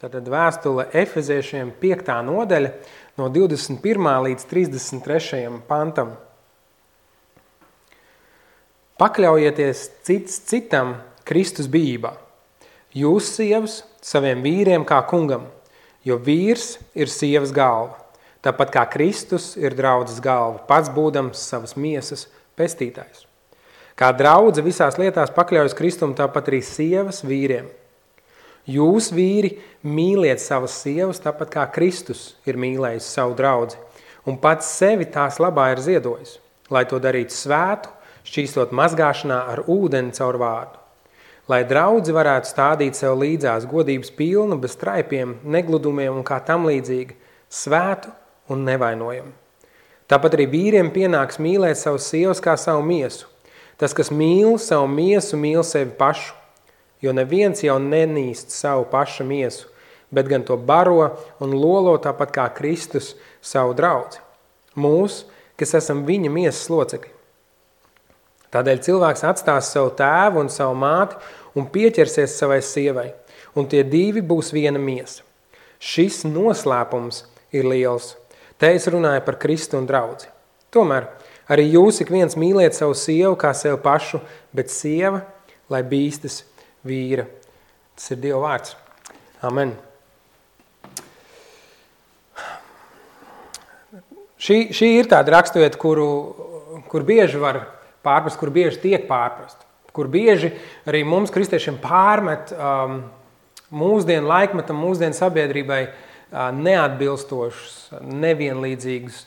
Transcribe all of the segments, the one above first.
Tātad vēstule Efeziešiem 5. nodaļa no 21. līdz 33. pantam. Pakļaujieties cits citam Kristus bijībā. Jūs, sievas, saviem vīriem kā kungam, jo vīrs ir sievas galva. Tāpat kā Kristus ir draudzes galva, pats būdams savas miesas pestītājs. Kā draudze visās lietās pakļaujas Kristum, tāpat arī sievas vīriem. Jūs, vīri, mīliet savas sievas, tāpat kā Kristus ir mīlējis savu draudzi, un pats sevi tās labā ir ziedojis, lai to darītu svētu, šķīstot mazgāšanā ar ūdeni caur vārdu. Lai draudzi varētu stādīt sev līdzās godības pilnu, bez traipiem, negludumiem un kā tam līdzīgi, svētu un nevainojumu. Tāpat arī vīriem pienāks mīlēt savus sievas kā savu miesu. Tas, kas mīl savu miesu, mīl sevi pašu, jo neviens jau nenīst savu paša miesu, bet gan to baro un lolo tāpat kā Kristus savu draudzi. Mūs, kas esam viņa miesas locekļi. Tādēļ cilvēks atstās savu tēvu un savu māti un pieķersies savai sievai, un tie divi būs viena miesa. Šis noslēpums ir liels. Te es runāju par Kristu un draudzi. Tomēr arī jūs ik viens mīliet savu sievu kā sev pašu, bet sieva, lai bīstas vīra. Tas ir Dieva vārds. Amen. Šī ir tāda raksturvieta, kur bieži var pārprast, kur bieži tiek pārprast, kur bieži arī mums, kristiešiem, pārmet mūsdienu laikmetam, mūsdienu sabiedrībai neatbilstošas, nevienlīdzīgas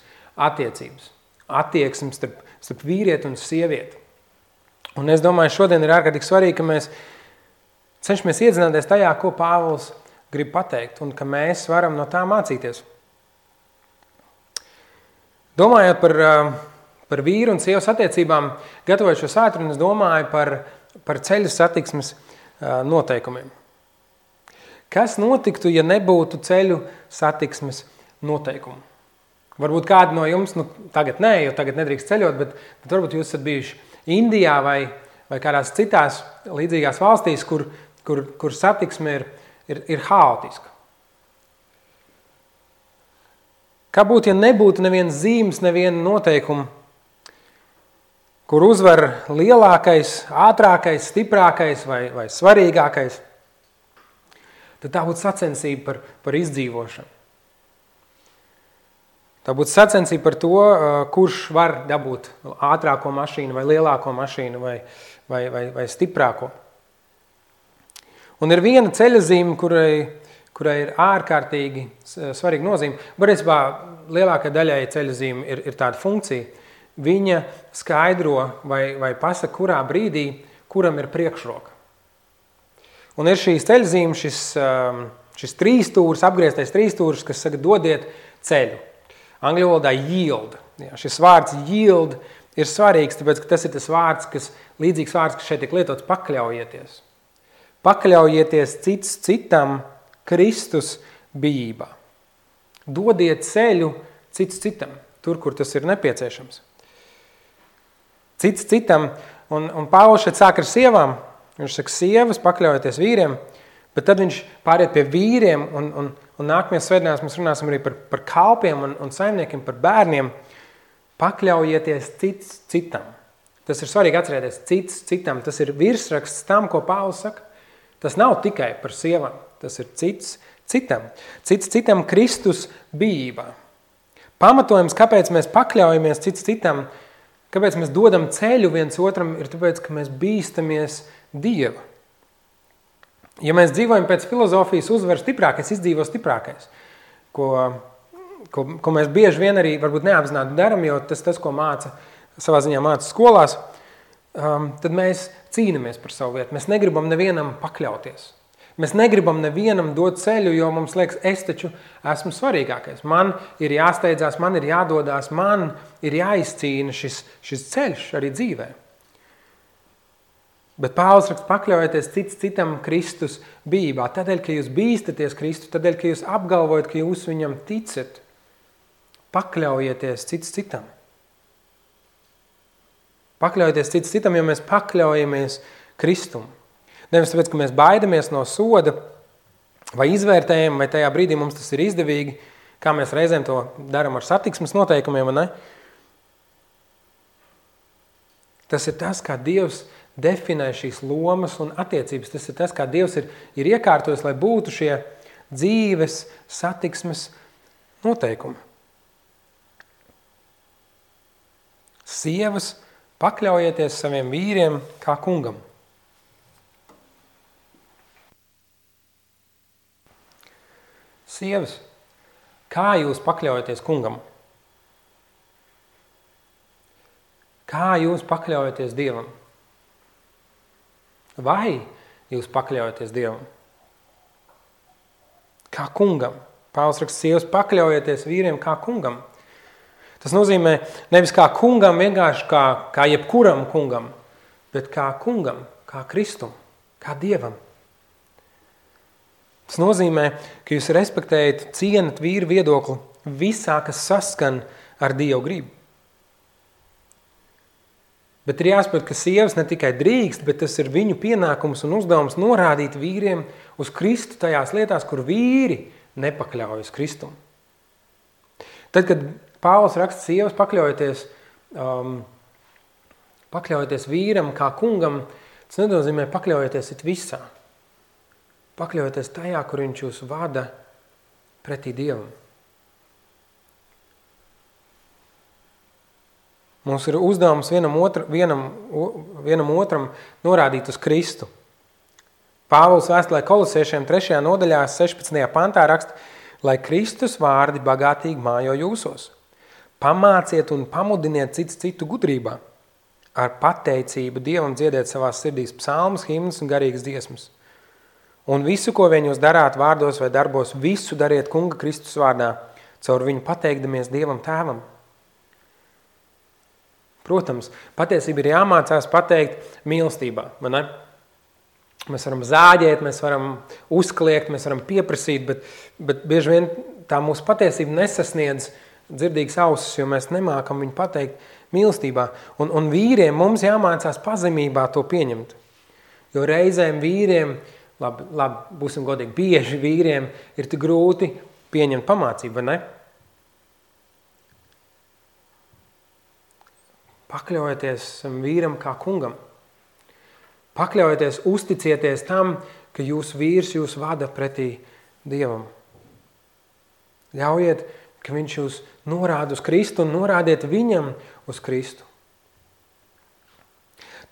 attiecības, attieksmes starp vīrieti un sievieti. Un es domāju, šodien ir ārkārtīgi svarīgi, ka mēs cenšamies iedzināties tajā, ko Pāvils grib pateikt, un ka mēs varam no tā mācīties. Domājot par vīru un sievas attiecībām, gatavojot šo svētdienu, es domāju par ceļu satiksmes noteikumiem. Kas notiktu, ja nebūtu ceļu satiksmes noteikumu? Varbūt kādi no jums, tagad nē, jo tagad nedrīkst ceļot, bet varbūt jūs esat bijuši Indijā vai kādās citās līdzīgās valstīs, kur satiksme ir haotiska. Kā būtu, ja nebūtu nevienas zīmes, neviena noteikuma, kur uzvar lielākais, ātrākais, stiprākais vai svarīgākais, tad tā būtu sacensība par izdzīvošanu. Tā būtu sacensība par to, kurš var dabūt ātrāko mašīnu vai lielāko mašīnu vai stiprāko. Un ir viena ceļazīme, kurai ir ārkārtīgi svarīga nozīme. Varēsībā lielākai daļai ceļazīme ir tāda funkcija. Viņa skaidro vai pasaka, kurā brīdī, kuram ir priekšroka. Un ir šīs ceļazīme, šis trīstūrs, apgrieztais trīstūrs, kas saka, dodiet ceļu. Angļu valodā yield. Jā, šis vārds yield ir svarīgs, tāpēc, ka tas ir tas vārds, līdzīgs vārds, kas šeit tiek lietots, pakļaujieties. Pakļaujieties cits citam Kristus bijībā. Dodiet ceļu cits citam, tur, kur tas ir nepieciešams. Cits citam, un Pāvils šeit sāk ar sievām, viņš saka sievas, pakļaujieties vīriem, bet tad viņš pāriet pie vīriem, un nākamajās svētdienās mēs runāsim arī par kalpiem un saimniekiem, par bērniem. Pakļaujieties cits citam. Tas ir svarīgi atcerēties, cits citam. Tas ir virsraksts tam, ko Pāvils saka. Tas nav tikai par sievām, tas ir cits citam. Cits citam Kristus bijībā. Pamatojums, kāpēc mēs pakļaujamies cits citam, kāpēc mēs dodam ceļu viens otram, ir tāpēc, ka mēs bīstamies Dieva. Ja mēs dzīvojam pēc filozofijas uzvar stiprākais, izdzīvo stiprākais, ko mēs bieži vien arī varbūt neapzināti daram, jo tas, ko savā ziņā māca skolās, tad mēs cīnamies par savu vietu. Mēs negribam nevienam pakļauties. Mēs negribam nevienam dot ceļu, jo mums liekas, es taču esmu svarīgākais. Man ir jāsteidzās, man ir jādodās, man ir jāizcīna šis ceļš arī dzīvē. Bet Pāvils raksta, pakļaujieties cits citam Kristus bijībā. Tādēļ, ka jūs bīstaties Kristu, tādēļ, ka jūs apgalvojat, ka jūs viņam ticat, pakļaujieties cits citam. Pakļaujieties cits citam, jo mēs pakļaujamies Kristum. Nevis tāpēc, ka mēs baidamies no soda, vai izvērtējam, vai tajā brīdī mums tas ir izdevīgi, kā mēs reizēm to darām ar satiksmes noteikumiem, vai ne? Tas ir tas, kā Dievs definē šīs lomas un attiecības. Tas ir tas, kā Dievs ir iekārtojis, lai būtu šie dzīves, satiksmes noteikumi. Sievas, pakļaujieties saviem vīriem kā kungam. Sievas, kā jūs pakļaujaties kungam? Kā jūs pakļaujaties Dievam? Vai jūs pakļaujaties Dievam? Kā kungam. Pāvils raksta, sievas, pakļaujieties vīriem kā kungam. Tas nozīmē nevis kā kungam, vienkārši kā jebkuram kungam, bet kā kungam, kā Kristum, kā Dievam. Tas nozīmē, ka jūs respektējat, cienat vīru viedokli visā, kas saskan ar Dievu gribu. Bet ir jāsaprot, ka sievas ne tikai drīkst, bet tas ir viņu pienākums un uzdevums norādīt vīriem uz Kristu tajās lietās, kur vīri nepakļaujas Kristum. Tad, kad Pāvils raksta, sievas, pakļaujieties vīram kā kungam, tas nenozīmē pakļaujieties it visā. Pakļaujieties tajā, kur viņš jūs vada pretī Dievam. Mums ir uzdevums vienam otram norādīt uz Kristu. Pāvils vēstulē Kolosiešiem 3. nodaļā 16. pantā raksta, lai Kristus vārdi bagātīgi mājo jūsos. Pamāciet un pamudiniet citu gudrībā. Ar pateicību Dievam dziediet savās sirdīs psalmus, himnas un garīgas dziesmas. Un visu, ko vien jūs darāt vārdos vai darbos, visu dariet Kunga Kristus vārdā, caur viņu pateikdamies Dievam Tēvam. Protams, patiesība ir jāmācās pateikt mīlestībā, vai ne? Mēs varam zāģēt, mēs varam uzkliegt, mēs varam pieprasīt, bet bieži vien tā mūsu patiesība nesasniedz dzirdīgas ausis, jo mēs nemākam viņu pateikt mīlestībā. Un vīriem mums jāmācās pazemībā to pieņemt. Jo reizēm vīriem, labi, būsim godīgi, bieži vīriem ir tik grūti pieņemt pamācību, vai ne? Pakļaujieties vīram kā kungam. Pakļaujieties, uzticieties tam, ka jūsu vīrs jūs vada pretī Dievam. Ļaujiet, ka viņš jūs norāda uz Kristu un norādiet viņam uz Kristu.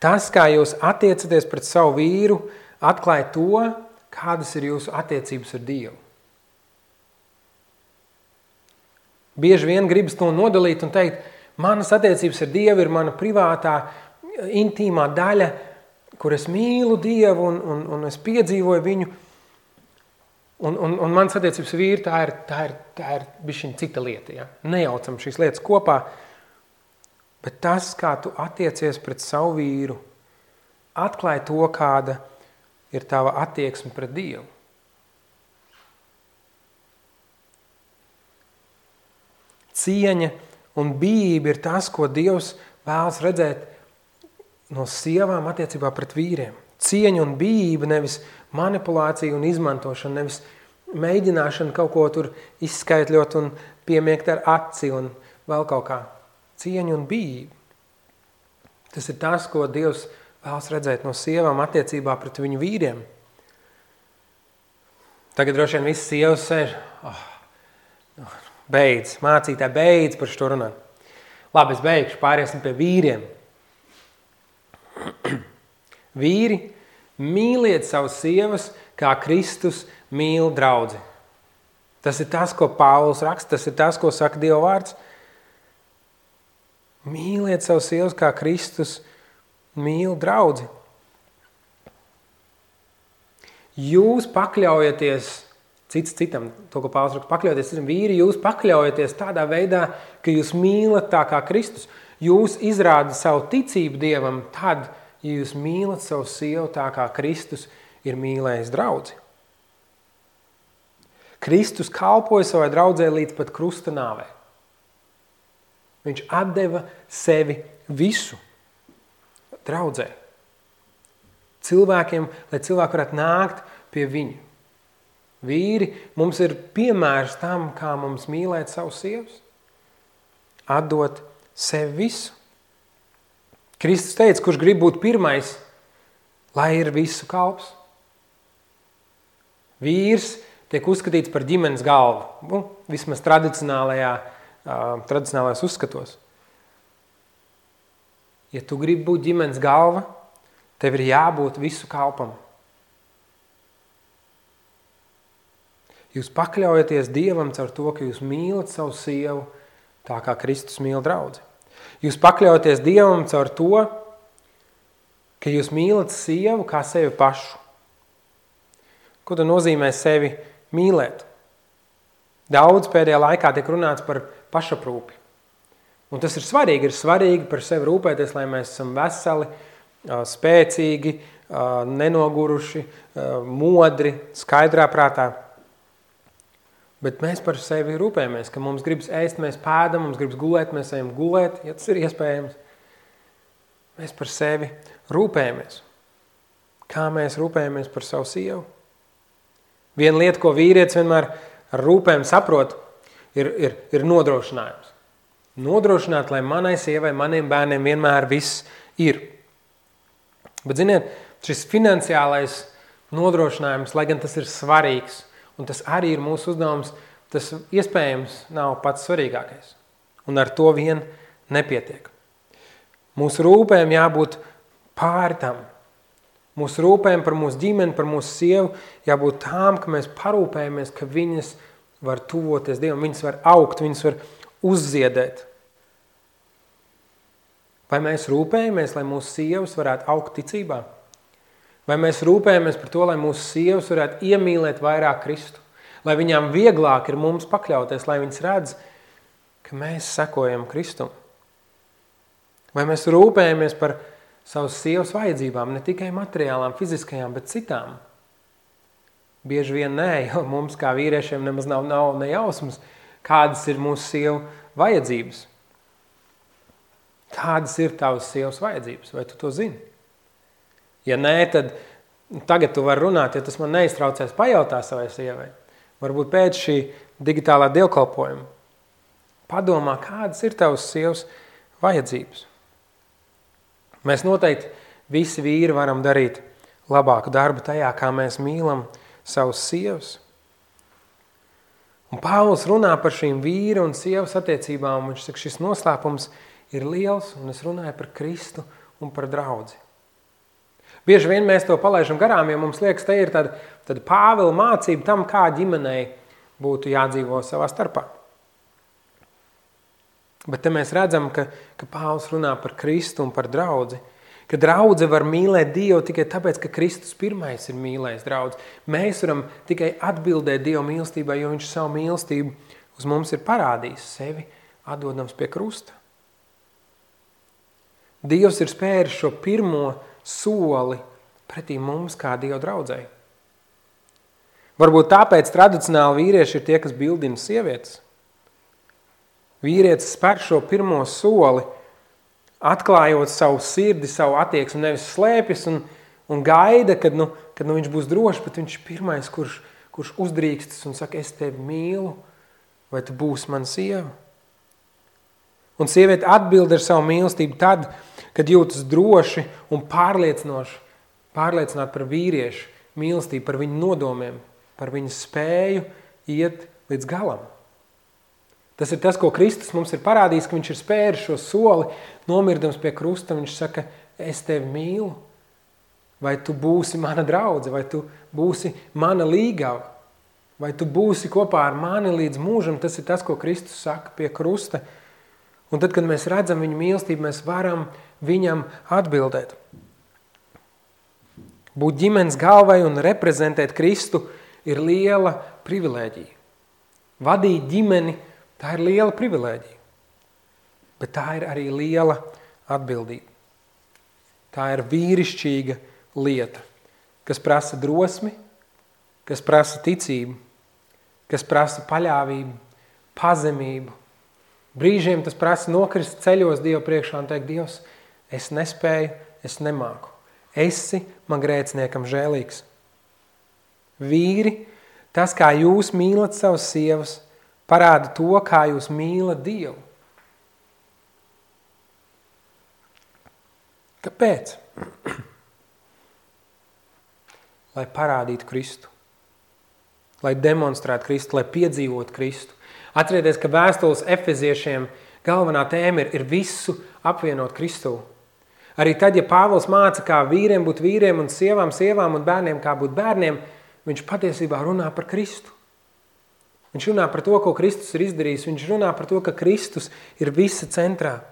Tas, kā jūs attiecaties pret savu vīru, atklāja to, kādas ir jūsu attiecības ar Dievu. Bieži vien gribas to nodalīt un teikt, manas attiecības ar Dievu ir mana privātā, intīmā daļa, kur es mīlu Dievu un es piedzīvoju viņu. Un mans attiecības ar vīru, tā ir bišķiņ cita lieta. Ja? Nejaucam šīs lietas kopā, bet tas, kā tu attiecies pret savu vīru, atklāja to, kāda ir tava attieksme pret Dievu. Cieņa un bijība ir tas, ko Dievs vēlas redzēt no sievām attiecībā pret vīriem. Cieņa un bijība, nevis manipulācija un izmantošana, nevis mēģināšana kaut ko tur izskaitļot un piemiekt ar aci un vēl kaut kā. Cieņa un bijība. Tas ir tas, ko Dievs vēlas redzēt no sievām attiecībā pret viņu vīriem. Tagad droši vien visas sievas sēž, beidz, mācītāji, beidz par šo runāt. Labi, es beigšu, pāriesim pie vīriem. Vīri, mīliet savas sievas, kā Kristus mīl draudzi. Tas ir tas, ko Pāvils raksta, tas ir tas, ko saka Dieva vārds. Mīliet savas sievas, kā Kristus mīl draudzi. Jūs pakļaujaties cits citam, to, ko Pāvils raksta, pakļaujaties citam. Vīri, jūs pakļaujaties tādā veidā, ka jūs mīlat tā kā Kristus. Jūs izrādat savu ticību Dievam tad, ja jūs mīlat savu sievu tā kā Kristus ir mīlējis draudzi. Kristus kalpoja savai draudzē līdz pat krusta nāvē. Viņš atdeva sevi visu draudzē. Cilvēkiem, lai cilvēki varētu nākt pie viņu. Vīri, mums ir piemērs tam, kā mums mīlēt savus sievas. Atdot sevi visu. Kristus teica, kurš grib būt pirmais, lai ir visu kalps. Vīrs tiek uzskatīts par ģimenes galvu, vismaz tradicionālajās uzskatos. Ja tu gribi būt ģimenes galva, tev ir jābūt visu kalpam. Jūs pakļaujaties Dievam caur to, ka jūs mīlat savu sievu tā, kā Kristus mīl draudzi. Jūs pakļaujaties Dievam caur to, ka jūs mīlat sievu kā sevi pašu. Ko tad nozīmē sevi mīlēt? Daudz pēdējā laikā tiek runāts par pašaprūpi. Un tas ir svarīgi par sevi rūpēties, lai mēs esam veseli, spēcīgi, nenoguruši, modri, skaidrā prātā. Bet mēs par sevi rūpējamies, ka mums gribas ēst, mēs pēdam, mums gribas gulēt, mēs ejam gulēt, ja tas ir iespējams. Mēs par sevi rūpējamies. Kā mēs rūpējamies par savu sievu? Viena lieta, ko vīrietis vienmēr ar rūpēm saprot, ir nodrošinājums. Nodrošināt, lai manai sievai, maniem bērniem vienmēr viss ir. Bet, ziniet, šis finansiālais nodrošinājums, lai gan tas ir svarīgs, un tas arī ir mūsu uzdevums, tas iespējams nav pats svarīgākais. Un ar to vien nepietiek. Mūsu rūpēm jābūt pāri tam. Mūsu rūpēm par mūsu ģimeni, par mūsu sievu jābūt tām, ka mēs parūpējamies, ka viņas var tuvoties Dievam, viņas var augt, viņas var uzziedēt. Vai mēs rūpējamies, lai mūsu sievas varētu augt ticībā? Vai mēs rūpējamies par to, lai mūsu sievas varētu iemīlēt vairāk Kristu? Lai viņām vieglāk ir mums pakļauties, lai viņas redz, ka mēs sekojam Kristum? Vai mēs rūpējamies par savas sievas vajadzībām, ne tikai materiālām, fiziskajām, bet citām? Bieži vien nē, jo mums kā vīriešiem nemaz nav ne jausmas, kādas ir mūsu sievu vajadzības. Kādas ir tavas sievas vajadzības? Vai tu to zini? Ja nē, tad tagad tu vari runāt, ja tas man neiztraucēs, pajautā savai sievai. Varbūt pēc šī digitālā dievkalpojuma. Padomā, kādas ir tavas sievas vajadzības. Mēs noteikti visi vīri varam darīt labāku darbu tajā, kā mēs mīlam savus sievas. Un Pāvils runā par šīm vīra un sievas attiecībām, un viņš saka, šis noslēpums ir liels, un es runāju par Kristu un par draudzi. Bieži vien mēs to palaižam garām, jo mums liekas, te ir tāda Pāvila mācība tam, kā ģimenei būtu jādzīvo savā starpā. Bet te mēs redzam, ka Pāvils runā par Kristu un par draudzi, ka draudze var mīlēt Dievu tikai tāpēc, ka Kristus pirmais ir mīlējis draudzi. Mēs varam tikai atbildēt Dieva mīlestībai, jo viņš savu mīlestību uz mums ir parādījis, sevi atdodams pie krusta. Dievs ir spēris šo pirmo soli pretī mums kā Dieva draudzei. Varbūt tāpēc tradicionāli vīrieši ir tie, kas bildina sievietes. Vīrietis spēr šo pirmo soli, atklājot savu sirdi, savu attieksmi, nevis slēpjas un gaida, kad viņš būs drošs, bet viņš ir pirmais, kurš uzdrīkstas un saka, es tevi mīlu, vai tu būsi mana sieva? Un sieviete atbild ar savu mīlestību tad, kad jūtas droši un pārliecināt par vīriešu mīlestību, par viņu nodomiem, par viņu spēju iet līdz galam. Tas ir tas, ko Kristus mums ir parādījis, ka viņš ir spēris šo soli, nomirdams pie krusta, viņš saka, es tevi mīlu, vai tu būsi mana draudze, vai tu būsi mana līgava, vai tu būsi kopā ar mani līdz mūžam, tas ir tas, ko Kristus saka pie krusta. Un tad, kad mēs redzam viņu mīlestību, mēs varam viņam atbildēt. Būt ģimenes galvai un reprezentēt Kristu ir liela privilēģija. Vadīt ģimeni, tā ir liela privilēģija. Bet tā ir arī liela atbildība. Tā ir vīrišķīga lieta, kas prasa drosmi, kas prasa ticību, kas prasa paļāvību, pazemību. Brīžiem tas prasa nokrist ceļos Dievu priekšā un teikt, Dievs, es nespēju, es nemāku. Esi man grēciniekam žēlīgs. Vīri, Tas, kā jūs mīlat savas sievas, parāda to, kā jūs mīlat Dievu. Kāpēc? Lai parādītu Kristu. Lai demonstrētu Kristu, lai piedzīvotu Kristu. Atcerieties, ka vēstules Efeziešiem galvenā tēma ir visu apvienot Kristū. Arī tad, ja Pāvils māca, kā vīriem būt vīriem un sievām un bērniem kā būt bērniem, viņš patiesībā runā par Kristu. Viņš runā par to, ko Kristus ir izdarījis. Viņš runā par to, ka Kristus ir visa centrā.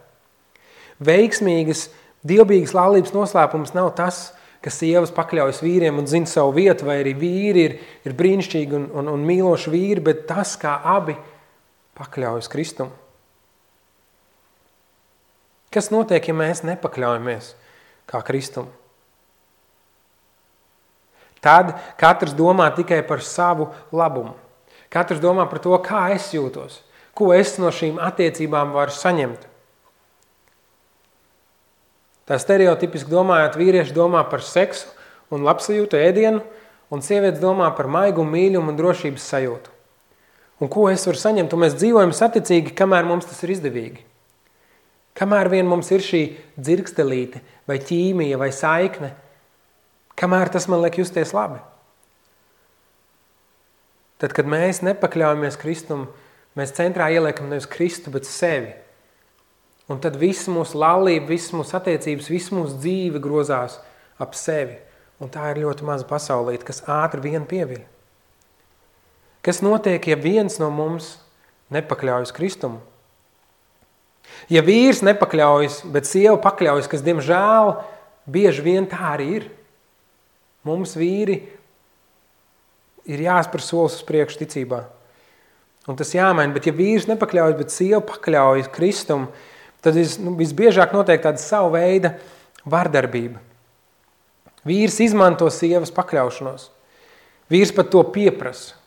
Veiksmīgas, dievbijīgas laulības noslēpums nav tas, ka sievas pakļaujas vīriem un zina savu vietu, vai arī vīri ir brīnišķīgi un mīloši vīri, bet tas, kā abi pakļaujas Kristum. Kas notiek, ja mēs nepakļaujamies kā Kristum? Tad katrs domā tikai par savu labumu. Katrs domā par to, kā es jūtos, ko es no šīm attiecībām varu saņemt. Tā stereotipiski domājot, vīrieši domā par seksu un labsajūtu ēdienu, un sievietes domā par maigumu, mīļumu un drošības sajūtu. Un ko es varu saņemt? Un mēs dzīvojam saticīgi, kamēr mums tas ir izdevīgi. Kamēr vien mums ir šī dzirkstelīte, vai ķīmija, vai saikne, kamēr tas man liek justies labi. Tad, kad mēs nepakļaujamies Kristum, mēs centrā ieliekam nevis Kristu, bet sevi. Un tad viss mūsu laulība, viss mūsu attiecības, viss mūsu dzīve grozās ap sevi. Un tā ir ļoti maza pasaulīte, kas ātri vien pieviļ. Kas notiek, ja viens no mums nepakļaujas Kristumu? Ja vīrs nepakļaujas, bet sieva pakļaujas, kas, diemžēl, bieži vien tā arī ir. Mums vīri ir jāspēr solis uz priekšu ticībā. Un tas jāmaina, bet ja vīrs nepakļaujas, bet sieva pakļaujas Kristumu, tad visbiežāk notiek tāda savu veida vardarbība. Vīrs izmanto sievas pakļaušanos. Vīrs pat to pieprasa.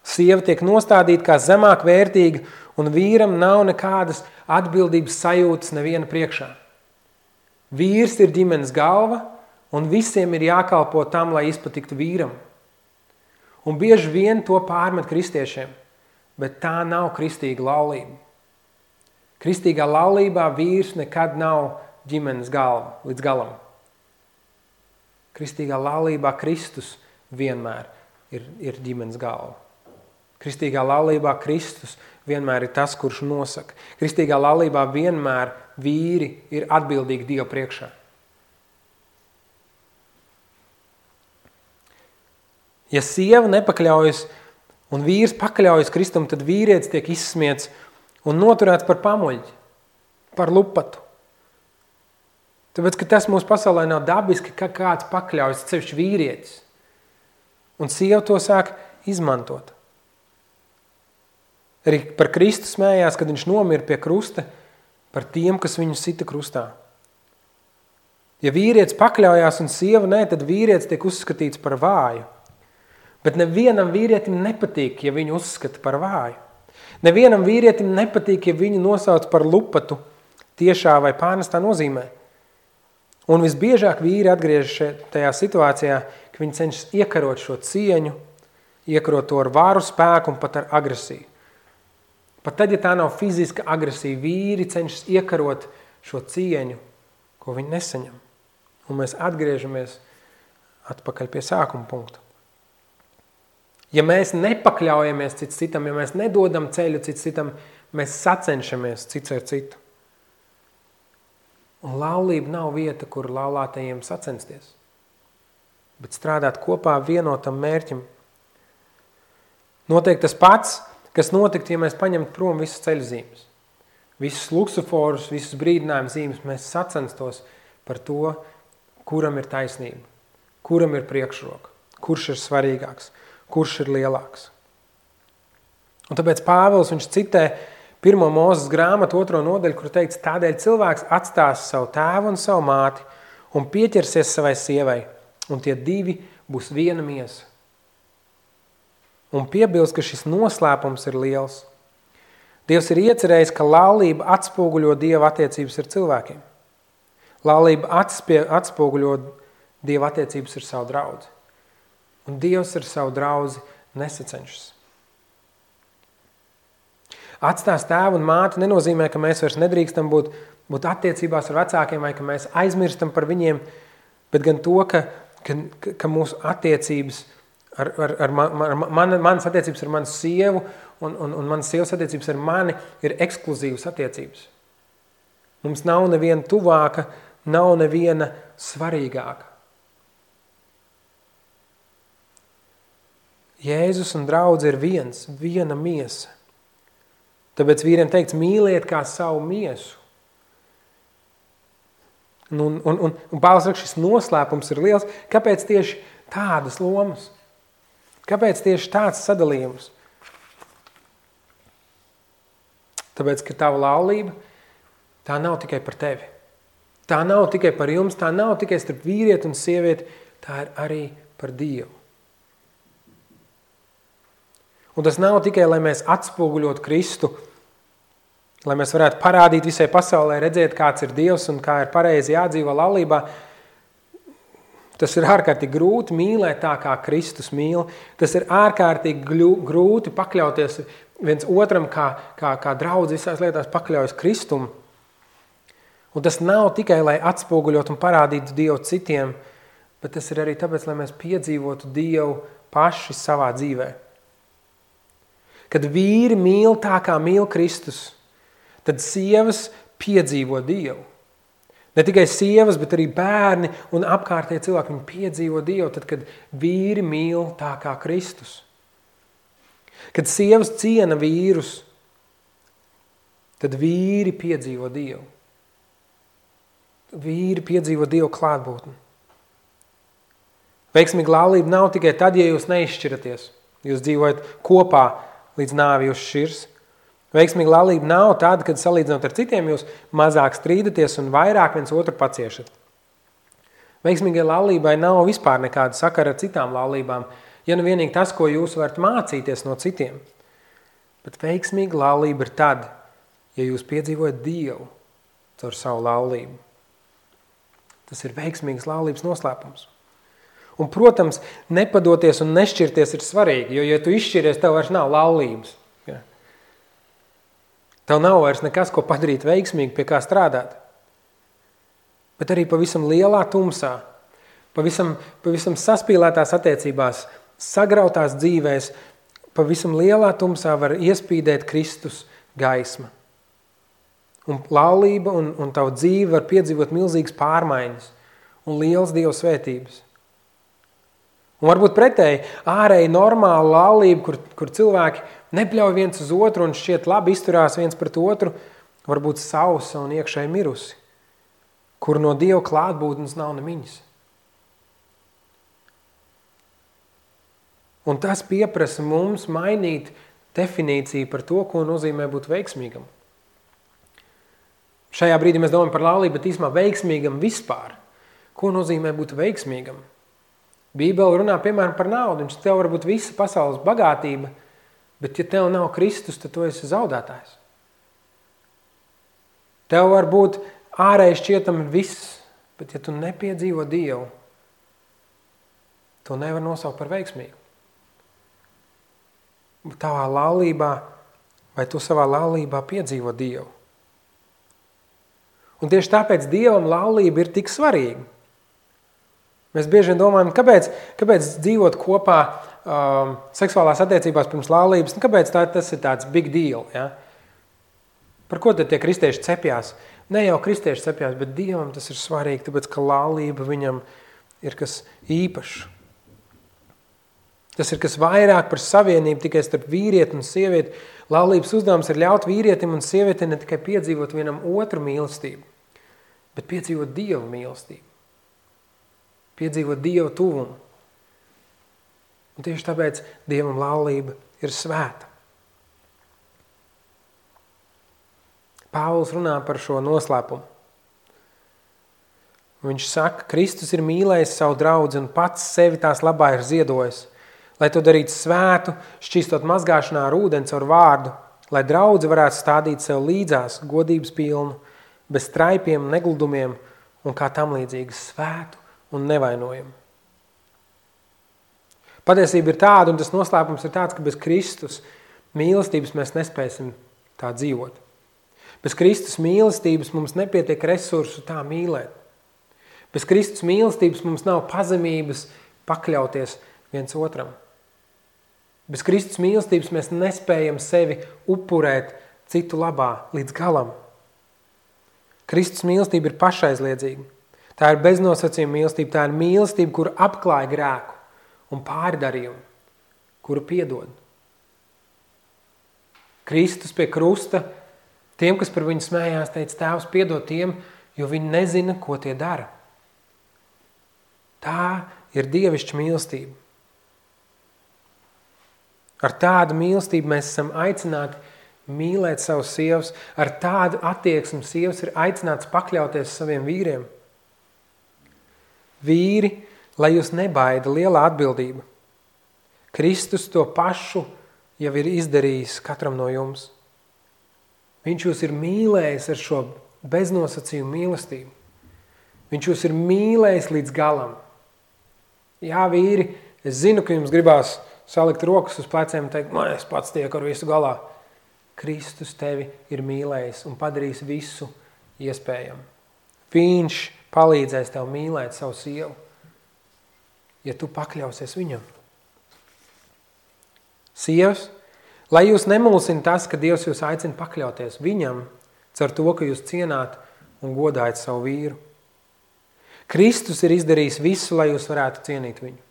Sieva tiek nostādīta kā zemāk vērtīga, un vīram nav nekādas atbildības sajūtas neviena priekšā. Vīrs ir ģimenes galva, un visiem ir jākalpo tam, lai izpatiktu vīram. Un bieži vien to pārmet kristiešiem, bet tā nav kristīga laulība. Kristīgā laulībā vīrs nekad nav ģimenes galva līdz galam. Kristīgā laulībā Kristus vienmēr ir ģimenes galva. Kristīgā laulībā Kristus vienmēr ir tas, kurš nosaka. Kristīgā laulībā vienmēr vīri ir atbildīgi Dievu priekšā. Ja sieva nepakļaujas un vīrs pakļaujas Kristum, tad vīrietis tiek izsmiets un noturēts par pamuļķi, par lupatu. Tāpēc, ka tas mūsu pasaulē nav dabiski, ka kāds pakļaujas, sevišķi vīrietis. Un sieva to sāk izmantot. Arī par Kristu smējās, kad viņš nomira pie krusta, par tiem, kas viņu sita krustā. Ja vīrietis pakļaujās un sieva nē, tad vīrietis tiek uzskatīts par vāju. Bet nevienam vīrietim nepatīk, ja viņu uzskata par vāju. Nevienam vīrietim nepatīk, ja viņu nosauc par lupatu tiešā vai pārnestā nozīmē. Un visbiežāk vīri atgriežas tajā situācijā, ka viņi cenšas iekarot šo cieņu, iekarot to ar varu, spēku un pat ar agresiju. Pat tad, ja tā nav fiziska agresija, vīri cenšas iekarot šo cieņu, ko viņi nesaņem. Un mēs atgriežamies atpakaļ pie sākuma punkta. Ja mēs nepakļaujamies cits citam, ja mēs nedodam ceļu cits citam, mēs sacenšamies cits ar citu. Un laulība nav vieta, kur laulātajiem sacensties, bet strādāt kopā vienotam mērķim. Notiek tas pats, kas notikt, ja mēs paņemtu prom visas ceļzīmes. Visus luksuforus, visus brīdinājumu zīmes, mēs sacenstos par to, kuram ir taisnība, kuram ir priekšroka, kurš ir svarīgāks, kurš ir lielāks. Un tāpēc Pāvils viņš citē 1. Mūzes grāmatu 2. nodaļu, kur teikts, tādēļ cilvēks atstās savu tēvu un savu māti un pieķersies savai sievai, un tie divi būs viena miesa. Un piebilst, ka šis noslēpums ir liels. Dievs ir iecerējis, ka laulība atspoguļo Dieva attiecības ar cilvēkiem. Laulība atspoguļo Dieva attiecības ar savu draudzi. Un Dievs ar savu draudzi nesacenšas. Atstās tēvu un māti nenozīmē, ka mēs vairs nedrīkstam būt attiecībās ar vecākiem vai ka mēs aizmirstam par viņiem, bet gan to, ka mūsu attiecības manas attiecības ar manu sievu un manas sievas attiecības ar mani ir ekskluzīvas attiecības. Mums nav neviena tuvāka, nav neviena svarīgāka. Jēzus un draudze ir viena miesa. Tāpēc vīriem teikts, mīliet kā savu miesu. Un Pāvils saka, šis noslēpums ir liels. Kāpēc tieši tādas lomas? Kāpēc tieši tāds sadalījums? Tāpēc, ka tava laulība, tā nav tikai par tevi. Tā nav tikai par jums, tā nav tikai starp vīrieti un sievieti, tā ir arī par Dievu. Un tas nav tikai, lai mēs atspoguļot Kristu, lai mēs varētu parādīt visai pasaulē, redzēt, kāds ir Dievs un kā ir pareizi jādzīvo laulībā. Tas ir ārkārtīgi grūti mīlēt tā, kā Kristus mīl. Tas ir ārkārtīgi grūti pakļauties viens otram, kā draudz visās lietās pakļaujas Kristumu. Un tas nav tikai, lai atspoguļot un parādītu Dievu citiem, bet tas ir arī tāpēc, lai mēs piedzīvotu Dievu paši savā dzīvē. Kad vīri mīl tā, kā mīl Kristus, tad sievas piedzīvo Dievu. Ne tikai sievas, bet arī bērni un apkārtēji cilvēki, viņi piedzīvo Dievu, tad, kad vīri mīl tā, kā Kristus. Kad sievas ciena vīrus, tad vīri piedzīvo Dievu. Vīri piedzīvo Dievu klātbūtni. Veiksmīga laulība nav tikai tad, ja jūs neizšķiraties. Jūs dzīvojat kopā līdz nāvi jūs šķirs. Veiksmīga laulība nav tāda, kad salīdzinot ar citiem jūs mazāk strīdaties un vairāk viens otru paciešat. Veiksmīgai laulībai nav vispār nekāda sakara ar citām laulībām, ja nu vienīgi tas, ko jūs varat mācīties no citiem. Bet veiksmīga laulība ir tad, ja jūs piedzīvojat Dievu caur savu laulību. Tas ir veiksmīgas laulības noslēpums. Un, protams, nepadoties un nešķirties ir svarīgi, jo, ja tu izšķiries, tev vairs nav laulības. Ja? Tev nav vairs nekas, ko padarīt veiksmīgi, pie kā strādāt. Bet arī pavisam lielā tumsā, pavisam saspīlētās attiecībās, sagrautās dzīvēs, pavisam lielā tumsā var iespīdēt Kristus gaisma. Un laulība un tavu dzīve var piedzīvot milzīgas pārmaiņas un liels Dieva svētības. Un varbūt pretēji, ārēji normāla laulība, kur cilvēki nepļauj viens uz otru un šķiet labi izturās viens pret otru, varbūt sausa un iekšēji mirusi, kur no Dieva klātbūtnes nav nemiņas. Un tas pieprasa mums mainīt definīciju par to, ko nozīmē būt veiksmīgam. Šajā brīdī mēs domājam par laulību, bet īsumā veiksmīgam vispār. Ko nozīmē būt veiksmīgam? Bībele runā, piemēram, par naudu. Viņš tev var būt visa pasaules bagātība, bet ja tev nav Kristus, tad tu esi zaudētājs. Tev var būt ārēji šķietami viss, bet ja tu nepiedzīvo Dievu, to nevar nosaukt par veiksmīgu. Tavā laulībā, vai tu savā laulībā piedzīvo Dievu. Un tieši tāpēc Dievam laulība ir tik svarīga. Mēs bieži vien domājam, kāpēc dzīvot kopā seksuālās attiecībās pirms laulības, kāpēc tas ir tāds big deal, ja? Par ko tad tie kristieši cepjās? Ne jau kristieši cepjās, bet Dievam tas ir svarīgi, tāpēc, ka laulība viņam ir kas īpašs. Tas ir kas vairāk par savienību tikai starp vīrieti un sievieti. Laulības uzdevums ir ļaut vīrietim un sievietei ne tikai piedzīvot vienam otru mīlestību, bet piedzīvot Dieva mīlestību. Piedzīvot Dieva tuvumu. Un tieši tāpēc Dievam laulība ir svēta. Pāvils runā par šo noslēpumu. Viņš saka, Kristus ir mīlējis savu draudzi un pats sevi tās labā ir ziedojis, lai to darītu svētu, šķīstot mazgāšanā ar ūdeni caur vārdu, lai draudze varētu stādīt sev līdzās godības pilnu, bez traipiem, negludumiem un kā tam līdzīgi svētu un nevainojumu. Patiesība ir tāda, un tas noslēpums ir tāds, ka bez Kristus mīlestības mēs nespēsim tā dzīvot. Bez Kristus mīlestības mums nepietiek resursu tā mīlēt. Bez Kristus mīlestības mums nav pazemības pakļauties viens otram. Bez Kristus mīlestības mēs nespējam sevi upurēt citu labā līdz galam. Kristus mīlestība ir pašaizliedzīga. Tā ir beznosacījuma mīlestība, tā ir mīlestība, kura apklāja grēku un pārdarījumu, kuru piedod. Kristus pie krusta, tiem, kas par viņu smējās, teica, Tēvs, piedod tiem, jo viņi nezina, ko tie dara. Tā ir dievišķa mīlestība. Ar tādu mīlestību mēs esam aicināti mīlēt savus sievas, ar tādu attieksmi sievas ir aicināts pakļauties saviem vīriem. Vīri, lai jūs nebaida lielā atbildība. Kristus to pašu jau ir izdarījis katram no jums. Viņš jūs ir mīlējis ar šo beznosacījumu mīlestību. Viņš jūs ir mīlējis līdz galam. Jā, vīri, es zinu, ka jums gribās salikt rokas uz pleciem un teikt, es pats tieku ar visu galā. Kristus tevi ir mīlējis un padarījis visu iespējamu. Viņš palīdzēs tev mīlēt savu sievu, ja tu pakļausies viņam. Sievas, lai jūs nemulsina tas, ka Dievs jūs aicina pakļauties viņam, caur to, ka jūs cienāt un godājat savu vīru. Kristus ir izdarījis visu, lai jūs varētu cienīt viņu.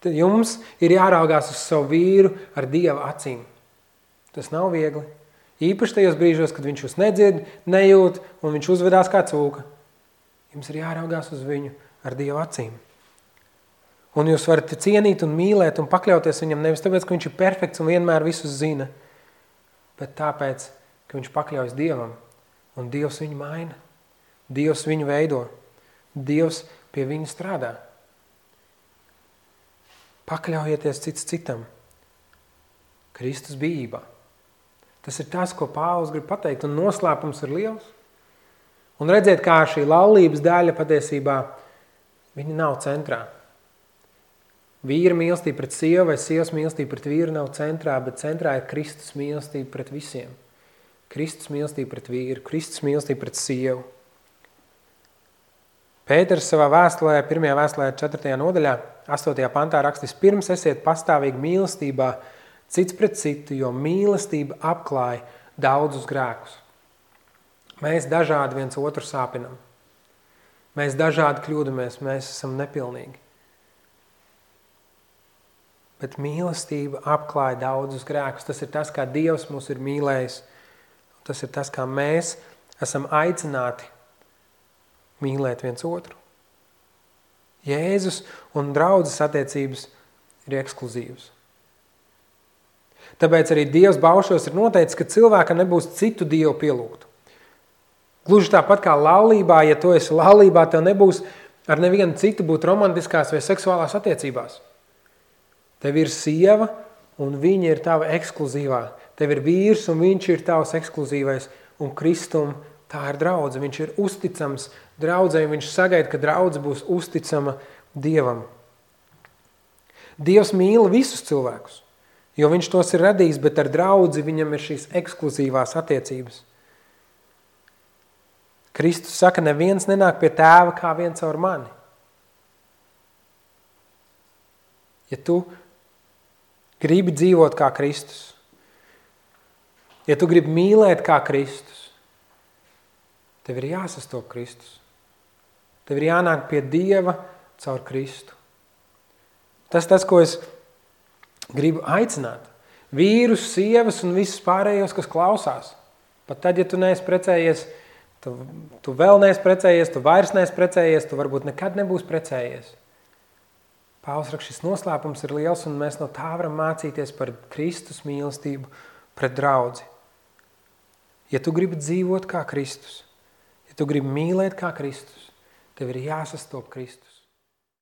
Tad jums ir jāraugās uz savu vīru ar Dieva acīm. Tas nav viegli. Īpaši tajos brīžos, kad viņš jūs nedzird, nejūt un viņš uzvedās kā cūka. Jums ir jāraugās uz viņu ar Dieva acīm. Un jūs varat cienīt un mīlēt un pakļauties viņam nevis tāpēc, ka viņš ir perfekts un vienmēr visus zina, bet tāpēc, ka viņš pakļaujas Dievam un Dievs viņu maina. Dievs viņu veido. Dievs pie viņa strādā. Pakļaujieties cits citam. Kristus bijībā. Tas ir tas, ko Pāvils grib pateikt, un noslēpums ir liels. Un redzēt, kā šī laulības daļa patiesībā, viņa nav centrā. Vīra mīlestība pret sievu vai sievas mīlestība pret vīru nav centrā, bet centrā ir Kristus mīlestība pret visiem. Kristus mīlestība pret vīru, Kristus mīlestība pret sievu. Pēters savā vēstulē, 1. vēstulē 4. nodaļā, 8. pantā rakstīs, pirms esiet pastāvīgi mīlestībā cits pret citu, jo mīlestība apklāja daudzus grēkus. Mēs dažādi viens otru sāpinam. Mēs dažādi kļūdamies, mēs esam nepilnīgi. Bet mīlestība apklāja daudzus grēkus. Tas ir tas, kā Dievs mūs ir mīlējis. Tas ir tas, kā mēs esam aicināti mīlēt viens otru. Jēzus un draudzes attiecības ir ekskluzīvas. Tāpēc arī Dievs baušos ir noteicis, ka cilvēkam nebūs citu Dievu pielūgt. Gluži tāpat kā laulībā, ja tu esi laulībā, tev nebūs ar nevienu citu būt romantiskās vai seksuālās attiecībās. Tev ir sieva un viņa ir tava ekskluzīvā. Tev ir vīrs un viņš ir tavs ekskluzīvais. Un Kristum tā ir draudze. Viņš ir uzticams draudzei, viņš sagaida, ka draudze būs uzticama Dievam. Dievs mīl visus cilvēkus, jo viņš tos ir radījis, bet ar draudzi viņam ir šīs ekskluzīvās attiecības. Kristus saka, neviens nenāk pie tēva kā viens caur mani. Ja tu gribi dzīvot kā Kristus, ja tu gribi mīlēt kā Kristus, tev ir jāsastop Kristus. Tev ir jānāk pie Dieva caur Kristu. Tas, ko es gribu aicināt. Vīrus, sievas un visus pārējos, kas klausās. Pat tad, ja tu neesi precējies, tu vēl neesi precējies, tu vairs neesi precējies, tu varbūt nekad nebūs precējies. Pāvils raksta, šis noslēpums ir liels, un mēs no tā varam mācīties par Kristus mīlestību pret draudzi. Ja tu gribi dzīvot kā Kristus, ja tu gribi mīlēt kā Kristus, tev ir jāsastop Kristus.